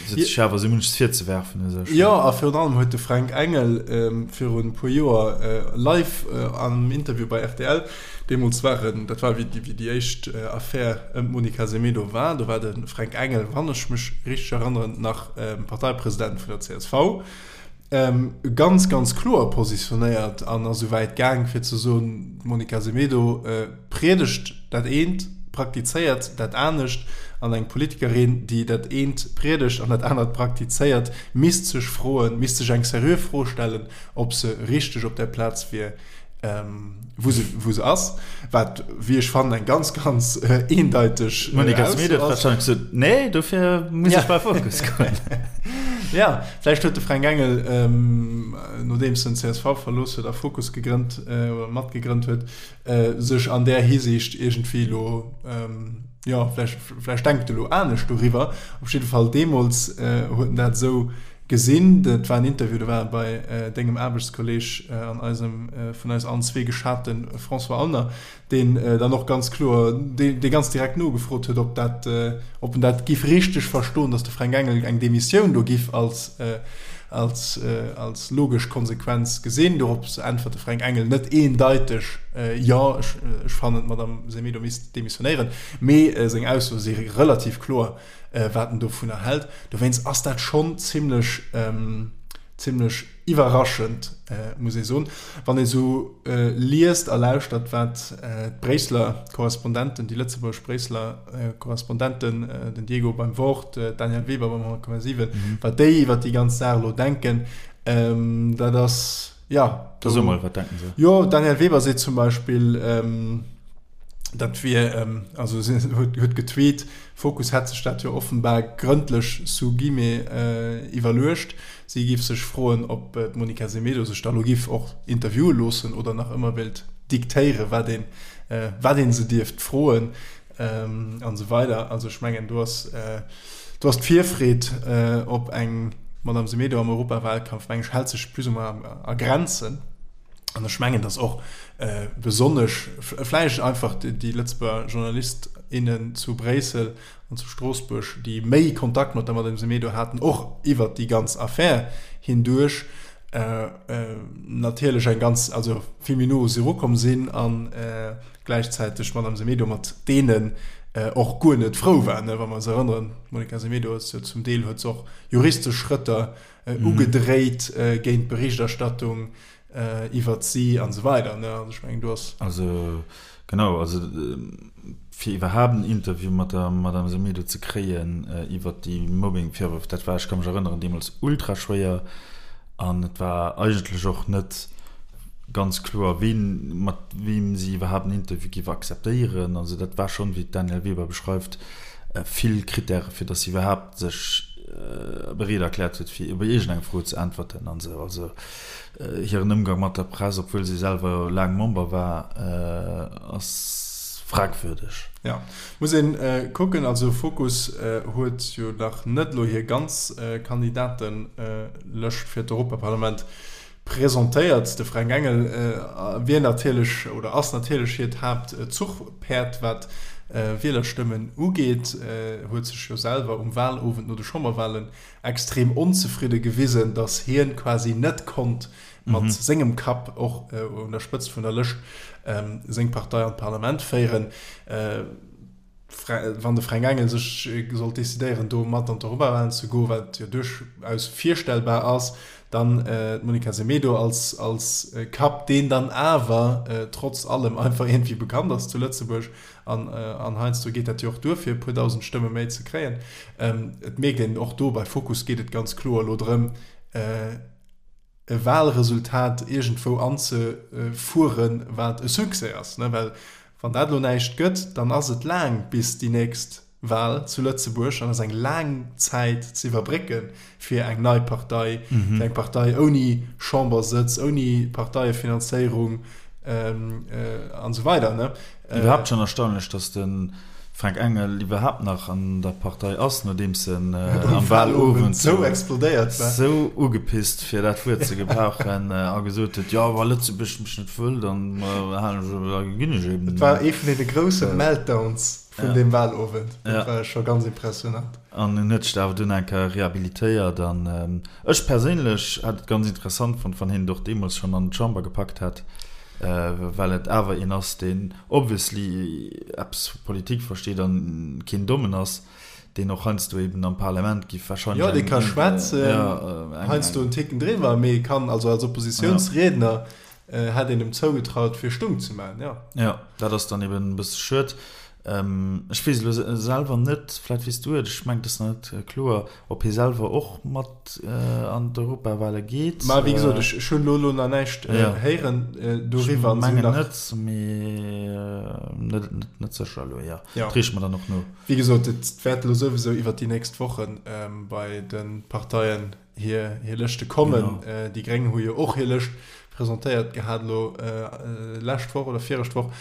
se huet sech awer esou munches virzewerfen u sech. Jo, a virun allem huet de Fränk Engel virun e puer Joer live am Interview bei rtl, deemools war en, dat war wéi déi éischt Affär ëm d'Monica Semedo war, do war de Fränk Engel, wann ech mech richteg erënneren, nach Parteipresident vun der csv, ganz, ganz kloer positionéiert an ass esou wäit gaang, fir ze soen, d'Monica Semedo priedegt dat eent, praktizéiert dat anescht. An eng Politikerin, déi dat eent priedegt an dat anert praktizéiert, misst sech froen, misst sech eng seriö Fro stellen, ob se richteg op där Plaz wier, wou se, wou se ass, wat, wéi ech fannen, eng ganz, ganz eendeiteg D'Monica Semedo huet wahrscheinlech gesot, Nee, dofir muss ech bei Fokus goen. Ja, vläicht huet de Fränk Engel, nodeems en csv verlooss huet a Fokus gegrënnt oder matgegrënnt huet, sech an där Hisiicht iergendwéi elo, jo, vläicht, vläicht denkt e lo anescht doriwwer. Op jidde Fall deemools huet en dat esou gesinn. Dat war en Interview, do war e bei dengem Aarbechtskolleeg an eisem vun eis allen zwee geschate François Aulner, deen dann och ganz kloer, dee ganz direkt nogefrot huet, ob dat, ob en dat giff richteg verstoen, datt de Fränk Engel eng Demissioun do giff als. Als, als logesch Konsequenz gesinn. Dorop äntwert de Fränk Engel net eendeiteg, Jo, ech, ech fannen, d'Madame Semedo misst demissionéieren. Mee seng Aussoe si relativ kloer, wat en dovunner hält. Dowéinst ass dat schonn zimlech, zimlech iwwerraschend, muss ee soen. Wann ee sou liest a lauschtert, wat d'Bréisseler Korrespondenten, déi lëtzebuergesch Bréisseler Korrespondenten, den Diego beim Wort, d'Danièle Weber beim 100,7, wat déi iwwer déi ganz Saach elo denken, dat ass, jo. Da so mol, wat denken se? Jo, d'Danièle Weber seet zum Beispill, dat wier, also si huet getweet, Fokus hätt sech dat jo offenbar grëndlech sous guillemets iwwerluecht. Si géif sech froen, ob d'Monica Semedo sech da lo géif och interviewe loossen oder nach ëmmer wéilt diktéieren, wat een, wat ee se dierft froen an esou weider. Also ech mengen, do ass, do ass d'Virfreed op eng Madame Semedo am Europawalkampf, meng ech, hält sech plus ou moins a Grenzen. An ech mengen, datt och besonnesch vläicht einfach déi Lëtzebuerger Journalist, innen zu Bréissel an zu Stroossbuerg, déi méi Kontakt mat der Madame Semedo haten, och iwwert déi ganz Affär hinduerch, natierlech eng ganz, also vill méi no u si erukomm sinn a gläichzäiteg d'Madame Semedo mat deenen och guer net frou war. Wa mer eis erënneren, d'Monica Semedo ass jo zum Deel, huet se och juristesch Schrëtter ugedréit géint d'Berichterstattung iwwert si an esou weider. Also ech mengen, do ass. Also genau, also fir iwwerhaapt en Interview mat der Madame Semedo ze kréien iwwert déi Mobbing-Virwërf, dat war, ech ka mech erënneren, deemools ultra schwéier an et war eigentlech och net ganz kloer, ween, mat weem si iwwerhaapt en Interview géif akzeptéieren. Also dat war schonn, wéi d'Danièle Weber beschreift, vill Krittäre fir datt si iwwerhaapt sech bereet erkläert huet, fir op iergendeng Fro ze äntwerten an esou. Also hiren Ëmgang mat der Press, obwuel si selwer laang Member war, ass fragwürdeg. Jo, muss een kucken. Also Fokus huet jo nach net elo hir ganz Kandidatelëscht fir d'Europaparlament presentéiert. De Fränk Engel wier natierlech oder ass natierlech hiert Haaptzuchpäerd, wat Wielerstëmmen ugeet. Huet sech jo selwer um Walowend no de Chamberwalen extrem onzefridde gewisen, datt hien quasi net konnt mat sengem Kapp och un der Spëtzt vun der Lëscht seng Partei an d'Parlament féieren. Wann de Fränk Engel sech sollt decidéieren, do mat an d'Europawahlen ze goen, wat jo duerchaus virstellbar ass, dann d'Monica Semedo als als Kapp, deen dann awer trotz allem einfach iergendwéi bekannt ass zu Lëtzebuerg, An, an heiansdo geet dat jo och duer, fir e puer dausend Stëmme méi ze kréien. Et mierkt een och do, bei Fokus geet et ganz kloer elo drëm, e Wahlresultat iergendwou anzefueren, wat e Succès ass. Well wann dat elo näischt gëtt, dann ass et laang bis déi nächst Wahl zu Lëtzebuerg an ass eng laang Zäit ze iwwerbrécke fir eng nei Partei, fir eng Partei ouni Chambersëtz, ouni Parteiefinanzéierung an esou weider. Iwwerhaapt schonn erstaunlech, datt de Fränk Engel iwwerhaapt nach an der Partei ass, nodeems en am Wahlowend sou explodéiert war, sou ugepisst, fir dat Wuert ze gebrauchen, a gesot huet, jo, wa Lëtzebuerg mech net wëll, dann halen ech, da ginn ech eben. Et war ee vun deene grousse Meltdowns vun deem Wahlowend. Dat war scho ganz impressionant. An en huet sech da awer dunn eng Kéier rehabilitéiert. An ech perséinlech hätt et ganz interessant fonnt, wann hien et och deemools schonn an d'Chamber gepackt hätt, well et awer een ass, deen obviously eppes vu Politik versteet an keen Dommen ass, deen och heiansdo eben am Parlament giff wahrscheinlech eng. Jo, dee ka schwätzen, heiansdo en Ticken driwwer, mee kann also als Oppositiounsriedner Hätt een em zougetraut fir stung ze maan, jo. Jo, dat ass dann eben e bësse schued. Ech weess elo selwer net, vläit weess du et, ech mengen et ass nach net kloer, ob hie selwer och mat an d'Europawale geet. Ma wéi gesot, ech hunn elo nach näischt héieren doriwwer. Ech mengen net, mee net sécher elo, jo. Dat reeche mer dann och no. Wéi gesot, et wäert elo souwisou iwwert déi nächst Woche bei de Parteien hir hir Lëschte kommen. Genau. Déi Gréng hu jo och hir Lëscht presentéiert gehat elo lescht Woch oder virescht Woch.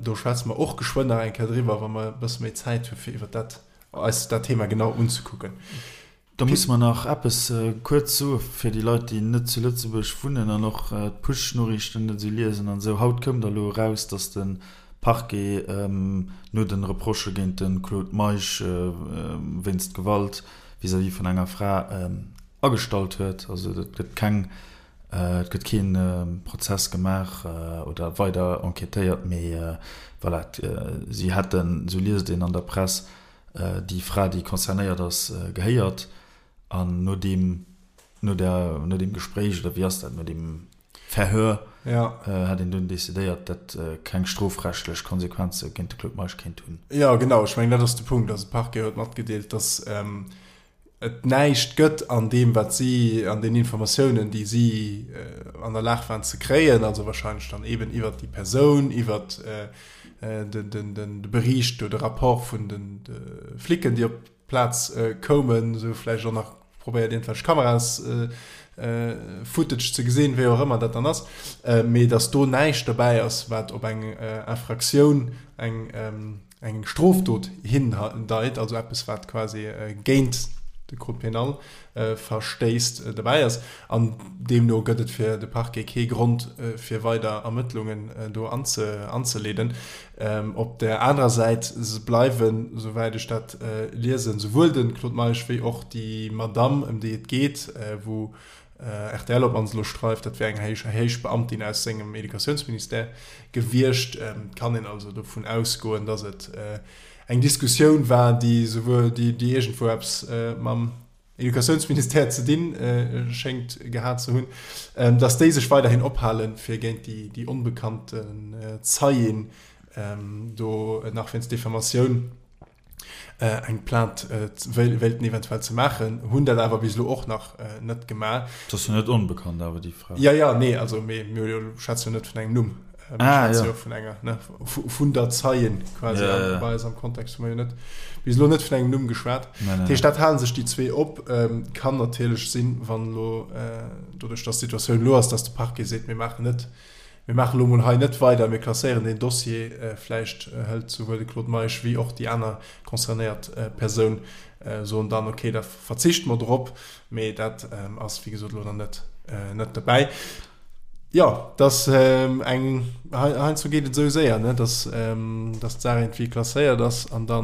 Do schwätze mer och geschwënn nach eng Kéier driwwer, wa mer e bësse méi Zäit hu fir iwwer dat eis dat Thema genau unzekucken. Da musse mer nach eppes kuerz soe fir déi Leit, déi net zu Lëtzebuerg wunnen an och d'Push-Noriichten net esou liesen an esou. Haut koum da elo eraus, datt de Parquet no de Reprochë géint de Claude Meisch wéinst Gewalt vis-à-vis vun enger Fra. Agestallt huet. Also et gëtt keng, et gëtt kee Prozess gemaach oder weider enquêtéiert, mee voilà, si hätten, esou liest een an der Press, déi Fra, déi concernéiert ass, gehéiert an no deem, no der, no deem Gespréich oder wéi ass dat, no deem Verhör hätt een dunn decidéiert, dat keng strofrechtlech Konsequenze géint de Claude Meisch kéint hunn. Jo, genau, ech mengen dat ass de Punkt. Also de Parquet huet matgedeelt, datt et näischt gëtt an deem, wat si, an den Informatiounen, déi si an der Lag waren ze kréien, also wahrscheinlech dann eeben iwwert déi Persoun, iwwert de Bericht oder de Rapport vun de Flicken, déi op d'Plaz koumen, esou vläicht och nach probéiert iergendwelch Kameras-Footage ze gesinn, wéi och ëmmer dat dann ass, mee datt do näischt dobäi ass, wat op eng Infractioun, eng eng Strofdot hindeit, also eppes wat quasi géint de Code pénal verstéisst, dobäi ass. An deemno gëtt et fir de Parquet kee Grond fir weider Ermëttlungen do anzeleeden. Op där anerer Säit bleiwen, souwäit ech dat liesen, souwuel de Claude Meisch wéi och déi Madamm, ëm déi et geet, wou Rtl op d'mannst elo schreift, dat wär eng héich héich Beamtin aus sengem Educatiounsministère gewiescht. Et kann een also dovun ausgoen, datt et eng Diskussioun war, déi souwuel déi déi iergendwou eppes mam Educatiounsministère ze dinn schéngt gehat ze hunn, datt déi sech weiderhin ophalen, fir géint déi déi onbekannten Zeien do nach wéinst Diffamatioun eng Plainte wéilten eventuell ze maachen, hunn dat awer bis elo och nach net gemaach. Dat ass jo net onbekannt awer, déi Fra. Jo, jo, nee, also mee mir schwätze jo net vun engem Numm, mir schwätze jo vun enger, ne, vun der Zeien quasi. Ja, bei eis am Kontext hu mer jo net bis elo net vun engem Numm geschwat. Dat heescht, dat hale sech déi zwee op. Kann natierlech sinn, wann elo, doduerch datt d'Situatioun elo ass, datt de Parquet seet, mir maachen net, Mir maachen elo mol hei net weider, mir klasséieren deen Dossier. Vläicht hëlt souwuel de Claude Meisch wéi och déi aner concernéiert Persoun soen dann, okay, da verzichte mer drop. Mee dat ass, wéi gesot, elo nach net, net dobäi. Jo, dass eng, heiansdo geet et esou séier, ne, dass, dass d'Saach iergendwéi klasséiert ass an da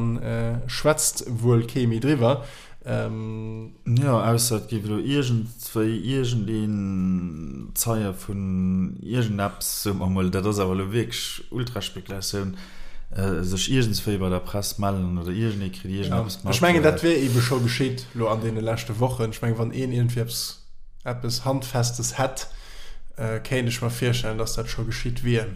schwätzt wuel kee méi driwwer. Jo, ausser et géif elo iergendwéi iergendeen Zeie vun iergendeppes, soe mer emol, dat ass awer elo wierklech Ultraspekulatioun, sech iergendswéi bei der Press mellen oder iergendee kritt iergendeppes mat. Ech mengen, dat wier eebe scho geschitt elo an deene leschte Wochen. Ech mengen, wann een iergendwéi eppes, eppes Handfestes hätt, kéint ech mer virstellen, datt dat scho geschitt wier.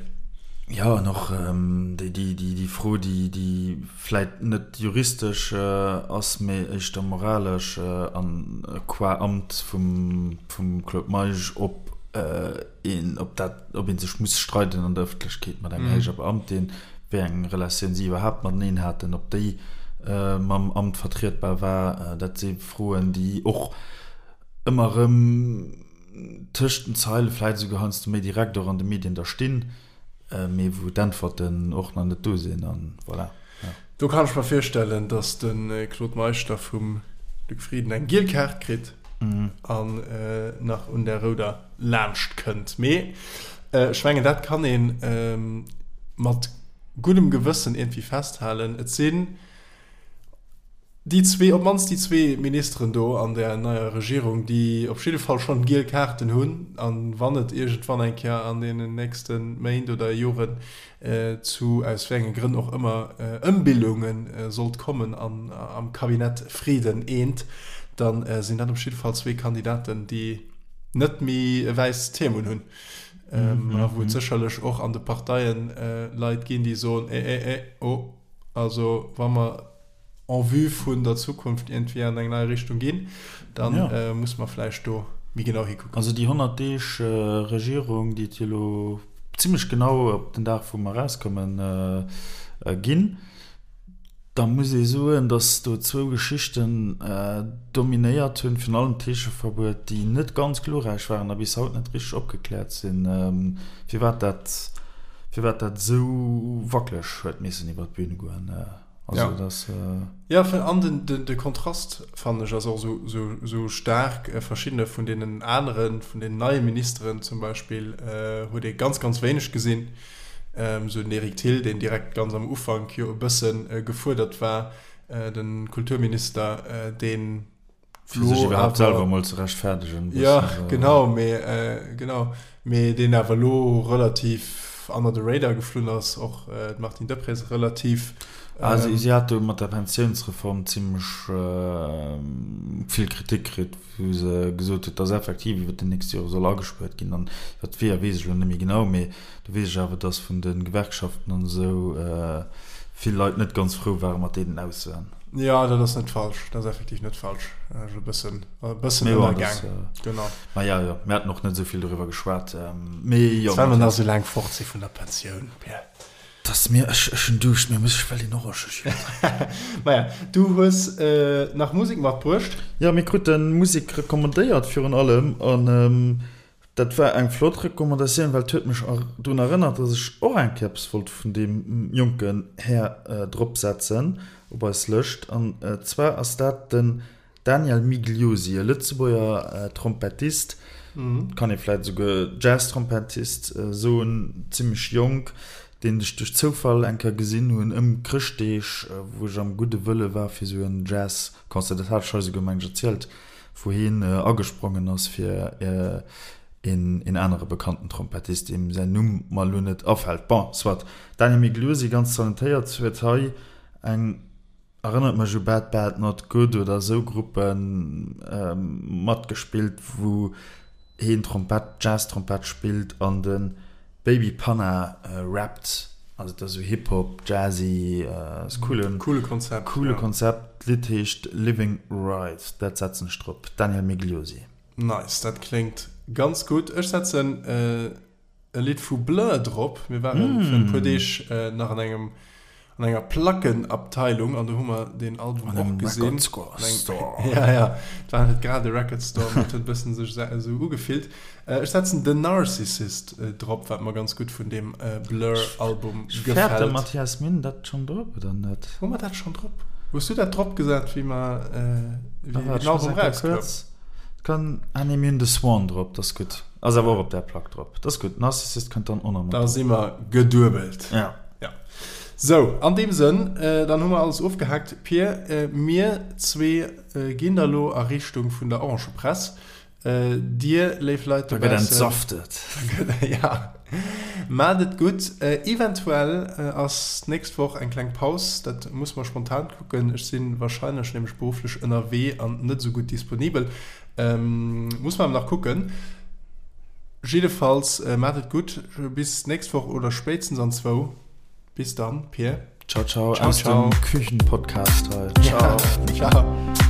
Jo, an och déi Fro, déi vläit net juristesch ass, mee éischter moralesch an qua Amt vum Claude Meisch, ob een, ob dat, ob ee sech muss streiden an der Ëffentlechkeet mat enger héijer Beamtin, wéi eng Relatioun si iwwerhaapt mateneen haten, ob déi mam Amt vertrietbar war, dat si Froen, déi och ëmmer erëm tëscht den Zeile, vläit esouguer heiansdo méi direkt och an de Medien da stinn. Mee wou d'Äntwerten och nach net do sinn an voilà. Ja. Do kann ech mer virstellen, datt de Claude Meisch da vum Luc Frieden eng giel Kaart kritt an nach un der rouder laanscht kënnt. Mee ech mengen, dat kann ee mat guddem Gewëssen iergendwéi festhalen, Et sinn Déi zwee, op d'mannst déi zwee Ministeren do an där neier Regierung, déi op jidde Fall schonn giel Kaarten hunn, a wann et iergendwann eng Kéier an deenen nächste Méint oder Joren zu, aus wéi enge Grënn och ëmmer, Ëmbillunge sollt kommen an am Cabinet Frieden I, da sinn dat op jidde Fall zwee Kandidaten, déi net méi e wäisst Hiem unhunn a wou et sécherlech och an de Parteien Leit ginn, déi soen, Eh, eh, eh, oh. Also wa mer en vue vun der Zukunft iergendwéi an eng nei Richtung ginn, da ja. muss mer vläicht do méi genau hikucken. Also déi 100 Deeg Regierung, déi et jo elo zimmlech genau op den Dag wou mer erauskommen ginn, da muss ee soen, datt do zwou Geschichten dominéiert hunn, virun allem d'Heescheverbuet, déi net ganz glorräich waren a bis haut net richteg opgekläert sinn, firwat dat firwat dat esou wackeleg huet missen iwwer d'Bühn goen. Also ja. das, äh ja, an den, den, de Kontrast fannen ech ass och esou, esou, esou staark. Verschiddene vun deenen aneren, vun den neie Ministeren zum Beispill, äh, huet ee ganz, ganz wéineg gesinn. Ähm, esou den Eric Thill, deen direkt ganz am Ufank jo e bëssen äh, gefuerdert war, äh, den Kulturminister, äh, deen. Fir sech iwwerhaapt selwer emol ze rechtfäerdegen. Jo, genau, mee genau, mee deen awer elo relativ under the radar geflunn ass, och d'Martine Deprez relativ. Ah, si hat do mat der Pensiounsreform zimmlech vill Kritik kritt, wou se gesot huet, dass effektiv iwwer déi nächst Jore soll agespuert ginn. An iwwer d'Weeër weess ech elo net méi genau, mee do weess ech awer, dass vun de Gewerkschaften an esou vill Leit net ganz frou ware mat deenen Aussoen. Jo, dat ass net falsch. Dat ass effektiv net falsch. Ech e bëssen, e bëssen ënnergaang. Genau. Ma ja, jo, mir haten och net esou vill doriwwer geschwat. Mee jo. Well mer nach esou laang fort si vun der Pensioun, Pierre. Dass mir, ech, ech hunn Duuscht, mir muss, ech wëll een Orangejuice drénken. Maja, du hues nach Musek matbruecht. Jo, mir krute Musek recommandéiert virun allem an dat war eng flott Recommandatioun, well et huet mech drun erënnert, dass ech och eng Kéier eppes wollt vun deem jonken Här dropsetzen op eis Lëscht. An zwar ass dat den Daniel Migliosi, e Lëtzebuerger Trompettist, kann ee vläit esouguer Jazz-Trompettist soen, zimmlech jonk, deen ech duerch Zoufall eng Kéier gesinn hunn ëm Chrëschtdeeg, wou ech am gudde Wëlle war fir esou en Jazz-Concert, dat hat ech hei esouguer, meng ech, erzielt, wou hien agesprongen ass fir een anere bekannten Trompettist, deem säin Numm mer elo net afält. Bon, soit. Daniel Migliosi, ganz talentéiert, huet hei eng. Erënnert mech u Bad Bad Not Good oder esou Gruppen matgespillt wou heen Trompett, Jazz Trompett spillt an de Baby Panna rappt. Also et ass esou Hip Hop, Jazzy, ass coolen, Coole Konzept, coole ja. Konzept. D'Lidd heescht Living Right, dat setzen ech drop. Daniel Migliosi. Nice, dat kléngt ganz gutt. Ech setzen e Lidd vu Blur drop. Mir waren mm. virun e puer Deeg äh, nach an engem an enger Plackenabteilung an do hu mer den Album an och gesinn. Record Store. Store. Ja, ja. Et war net grad e Record Store, mee et huet e bëssen sech esou ugefillt. Äh, ech setzen The Narcissist äh, drop, wat mer ganz gutt vun deem äh, Blur-Album gefält. Fäert de Mathias Minn dat schonn drop oder net? Hu mer dat schonn drop? Hues du dat drop gesat, wéi mer äh, wéi den Album rauskoum? Kann, ah nee, mir hunn The Swan drop, dat ass gutt. Ass awer och op där Plack drop. Dat ass gutt. Narcissist kënnt dann och nach mat drop. Da si mer geduebelt. Ja. Ja. Sou, an deem Sënn, dann hu mer alles ofgehaakt. Pir, mir zwee ginn da lo a Richtung vun der Orangepress. Dir, léif Leit dobaussen. Da gëtt entsaftet. Ja. Maacht et gutt. Eventuell ass d'nächst Woch eng kleng Paus. Dat muss mer spontan kucken. Ech si warscheinlech nämlech berufflech ënnerwee an net esou gutt disponibel. Muss mer awer nach kucken. Jiddefalls, maacht et gutt. Bis d'nächst Woch oder spéitstens an zwou. Bis dann, Pir. Ciao, ciao, ciao aus dem Küchenpodcast hei. Ciao. Ciao.